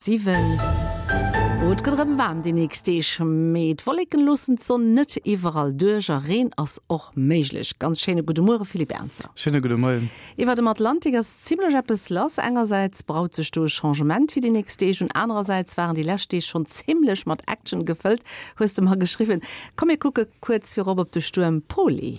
7. Oh, et gëtt erëm waarm déi nächst Deeg, mee d'Wolleken loossen d'Sonn net iwwerall duerch a Reen ass och méiglech. Ganz schéine gudde Muere Philippe Ernzer. Schéine gudde Moien. Iwwer dem Atlantik ass zimmlech eppes lass. Engersäits braut sech do e Changement fir déi nächst Deeg un, anerersäits waren déi lescht Deeg schonn zimmlech mat Action gefëllt, hues de mer geschriwwen. Komm mir kucke kuerz virop op de Stuerm Poly.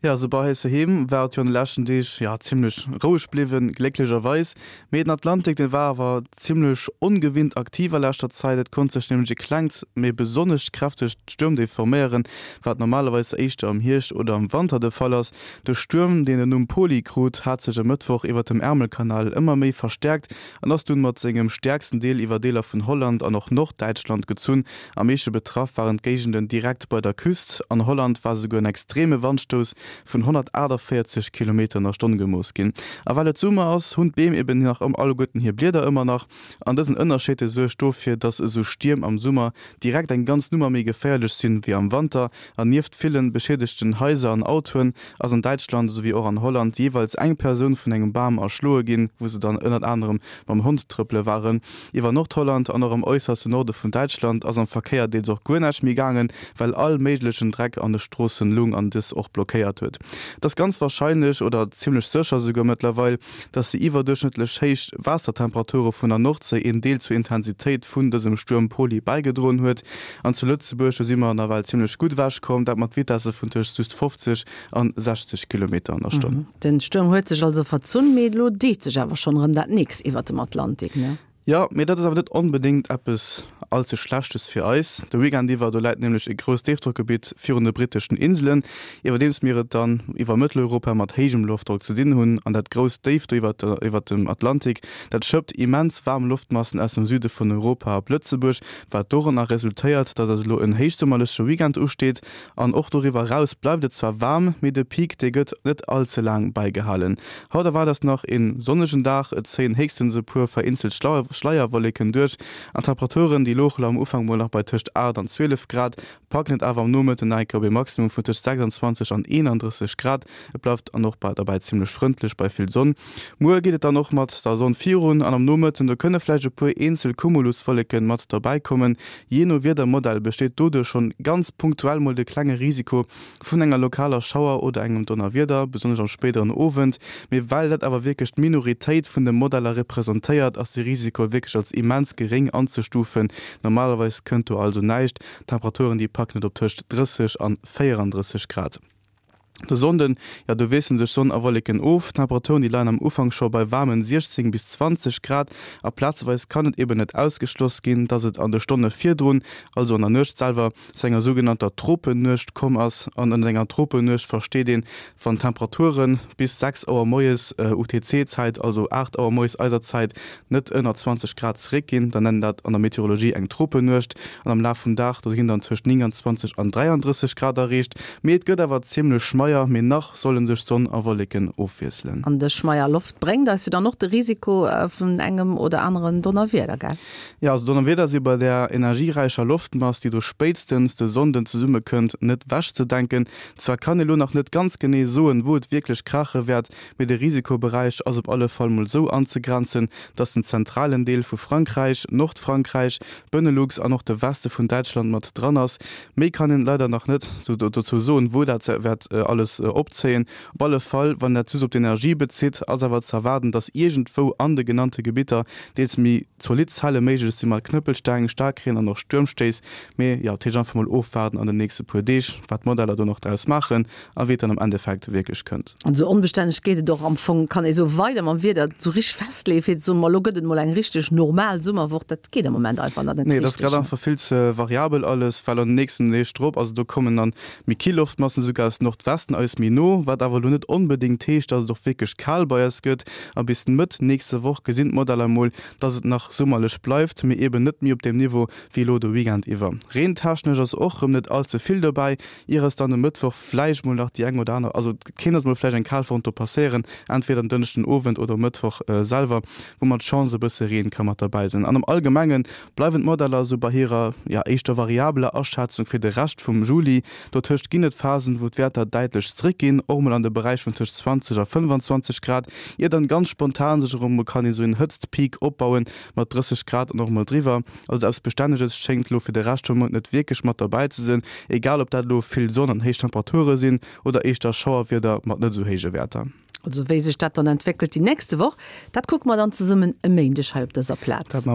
Jo, esou bei eis heiheem war et jo an de leschten Deeg, jo, zimmlech roueg bliwwen, glécklecherweis. Mee den Atlantik, dee war awer zimmlech ongewinnt aktiv a leschter Zäit. Et konnt sech nämlech e klengt, mee besonnesch kräftegt Stuermdéif forméieren, wat normalerweis éischter am Hierscht oder am Wanter de Fall ass. De Stuerm, deen den Numm Poly krut, hat sech e Mëttwoch iwwert dem Ärmelkanal ëmmer méi verstäerkt an ass dunn mat sengem stäerksten Deel iwwer Deeler vun Holland an och Norddäitschland gezunn. Am meeschte betraff waren d'Géigenden direkt bei der Küst. An Holland war souguer en extreme Wandstouss vun 148 Kilometer an der Stonn gemooss ginn. A well et Summer ass, hunn d'Beem eben nach alleguerten hir Blieder ëmmer nach. An dësen Ënnerscheed de suergt dofir, dass esou Stierm am Summer direkt eng ganz Nummer méi geféierlech sinn wéi am Wanter. An nieft villen beschiedegten Haiser an Autoen ass an Däitschland esouwéi och an Holland jeeweils eng Persoun vun engem Bam erschloe ginn, wou se dann ënnert anerem mam Hond trëppele waren. Iwwer Nordholland an och am äusserste Norde vun Däitschland ass am Verkéier deels och guer näischt méi gaangen, well all méiglechen Dreck an de Stroossen lung an dës och blockéiert huet. Et ass ganz warscheinlech, oder zimmlech sécher esouguer mëttlerweil, dass déi iwwerduerchschnëttlech héich Waassertemperature vun der Nordséi een Deel zur Intensitéit vun dësem Stuerm Poly bäigedroen huet. An zu Lëtzebuerg, do si mer nawell zimmlech gutt ewechkomm, dat mat Vitesse vun tëscht just 50 an 60 Kilometer an der Stonn. Den Stuerm huet sech also verzunn, mee elo deet sech awer schonn erëm dat nächst iwwert dem Atlantik, ne? Jo, mee dat ass awer net onbedéngt eppes all ze Schlechtes fir eis. De Weekend iwwer, do läit nämlech e grousst Déifdrockgebitt virun de britteschen Inselen, iwwerdeems mir et dann iwwer Mëtteleuropa mat héijem Loftdrock ze dinn hunn. An dat grousst Déif do iwwert dem Atlantik, dat schëppt immens waarm Loftmassen aus dem Süde vun Europa op Lëtzebuerg, wat doranner resultéiert, dass eis elo en héichsummerleche Weekend usteet. An och doriwwer eraus bleift et zwar waarm, mee de Peak, dee gëtt net all ze laang bäigehalen. Haut erwaart eis nach een sonnegen Dag, et zéien héchstens e puer vereenzelt Schleierwolleken duerch an d'Temperaturen, déi louche am Ufank mol nach bei tëscht 8 an 12 Grad, packen et awer am Nomëtten nach eng Kéier op ee Maximum vun tëscht 26 an 31 Grad. Et bleift an och bei derbäi zimmlech frëndlech bei vill Sonn. Muer geet et dann och mat der Sonn virun an am Nomëtten do kënne vläicht e puer eenzel Cumuluswolleken mat derbäi kommen. Jee no Wiedermodell besteet doduerch schonn ganz punktuell mol de klenge Risiko vun enger lokaler Schauer oder engem Donnerwieder, besonnesch am spéideren Owend. Mee well dat awer wierklech d'Minoritéit vun de Modeller representéiert, ass de Risiko wierklech als immens geréng anzestufen. Normalerweis kënnt do also näischt. D'Temperaturen déi packen et op tëscht 30 an 34 Grad. De Sonnden, jo do wiessele sech Sonn a Wolleken of. D'Temperaturen déi leien am Ufank scho bei waarmen 16 bis 20 Grad a plazeweis kann et eben net ausgeschloss ginn, dass et an de Stonne virdrun, also an der Nuecht selwer, zu enger sougenannter Tropennuecht komm ass. An ënnert enger Tropennuecht versteet een, wann d'Temperature bis 6 Auer moies UTC-Zäit, also 8 Auer moies eiser Zäit, net ënner 20 Grad zeréckginn, dann nennen dat an der Meteorologie eng Tropennuecht. An am Laf vum Dag, do ginn dann tëscht 29 an 33 Grad erreecht. Mee et gëtt awer zimmlech schmeier, mee nach solle sech Sonn a Wolleken ofwiesselen. An dës schmeier Loft bréngt eis jo dann och de Risiko vun engem oder aneren Donnerwieder, gell? Jo, also Donnerwieder si bei där energieräicher Loftmass, déi do spéitstens de Sonnden zesummekënnt, net wechzedenken. Zwar kann ee lo nach net ganz genee soen, wou et wierklech kraache wäert, Mee de Risikoberäich ass op alle Fall mol sou anzegrenzen, dass den zentralen Deel vu Frankräich, Nordfrankräich, Benelux an och de Weste vun Däitschland mat dran ass. Méi kann een leider nach net dozou soen, wou dat wäert alles opzéien. Op alle Fall, wann dat just op d'Energie bezitt, ass awer ze erwaarden, dass iergendwou an de genannte Gebitter deels méi zolidd Zelle méiglech si mat Knëppelsteng, Staarkreen an och Stuermstéiss. Mee jo, dat heescht einfach mol ofwaarden an den nächste puer Deeg, wat d'Modeller do nach draus maachen a wéi et dann am Endeffekt wierklech kënnt. An esou onbestänneg geet et och am Fong, kann ee soen, weider mam Wieder esou richteg festleeën, fir ze soen, ma elo gëtt et mol eng richteg normal Summerwoch, dat geet am Moment einfach nach net Nee, et ass grad einfach vill ze variabel alles, well an den nächsten Deeg drop, also do kommen dann méi kill Loftmassen esouguer aus Nordwesten eis méi no, wat awer elo net onbedéngt heescht, dass et och wierklech kal bei eis gëtt. A bis Mëtt nächster Woch gesinn d'Modeller mol, dass et nach summerlech bleift, mee eben net méi op deem Niveau wéi elo de Weekend iwwer. Reentechnesch ass och rëm net all ze vill dobäi, Ier es dann e Mëttwoch vläicht mol nach déi eng oder aner, also et kéint eis mol vläicht eng Kalfront do passéieren, entweder en Dënschden Owend oder um Mëttwoch selwer, wou mat Chance e bësse Reen ka mat derbäi sinn. An am Allgemenge bleiwen d'Modeller esou bei hirer, jo, éischter variabeler Aschätzung fir de Rescht vum Juli. Dotëscht ginn et Phasen, wou d'Wäerter däitlech. däitlech zréckginn, och mol an de Beräich vun tëscht 20 a 25 Grad, ier dann ganz spontan sech erëm mol kann esou en Hëtztpeak opbauen mat 30 Grad an och mol driwwer. Also eppes Bestänneges schéngt elo fir de Rescht vum Mount net wierklech mat derbäi ze sinn, egal ob dat elo vill Sonn an héich Temperature sinn oder éischter Schauerwieder mat net esou héije Wäerter. Also wéi sech dat dann entwéckelt déi nächste Woch, dat kucke mer dann zesummen e Méindeg hei op dëser Plaz.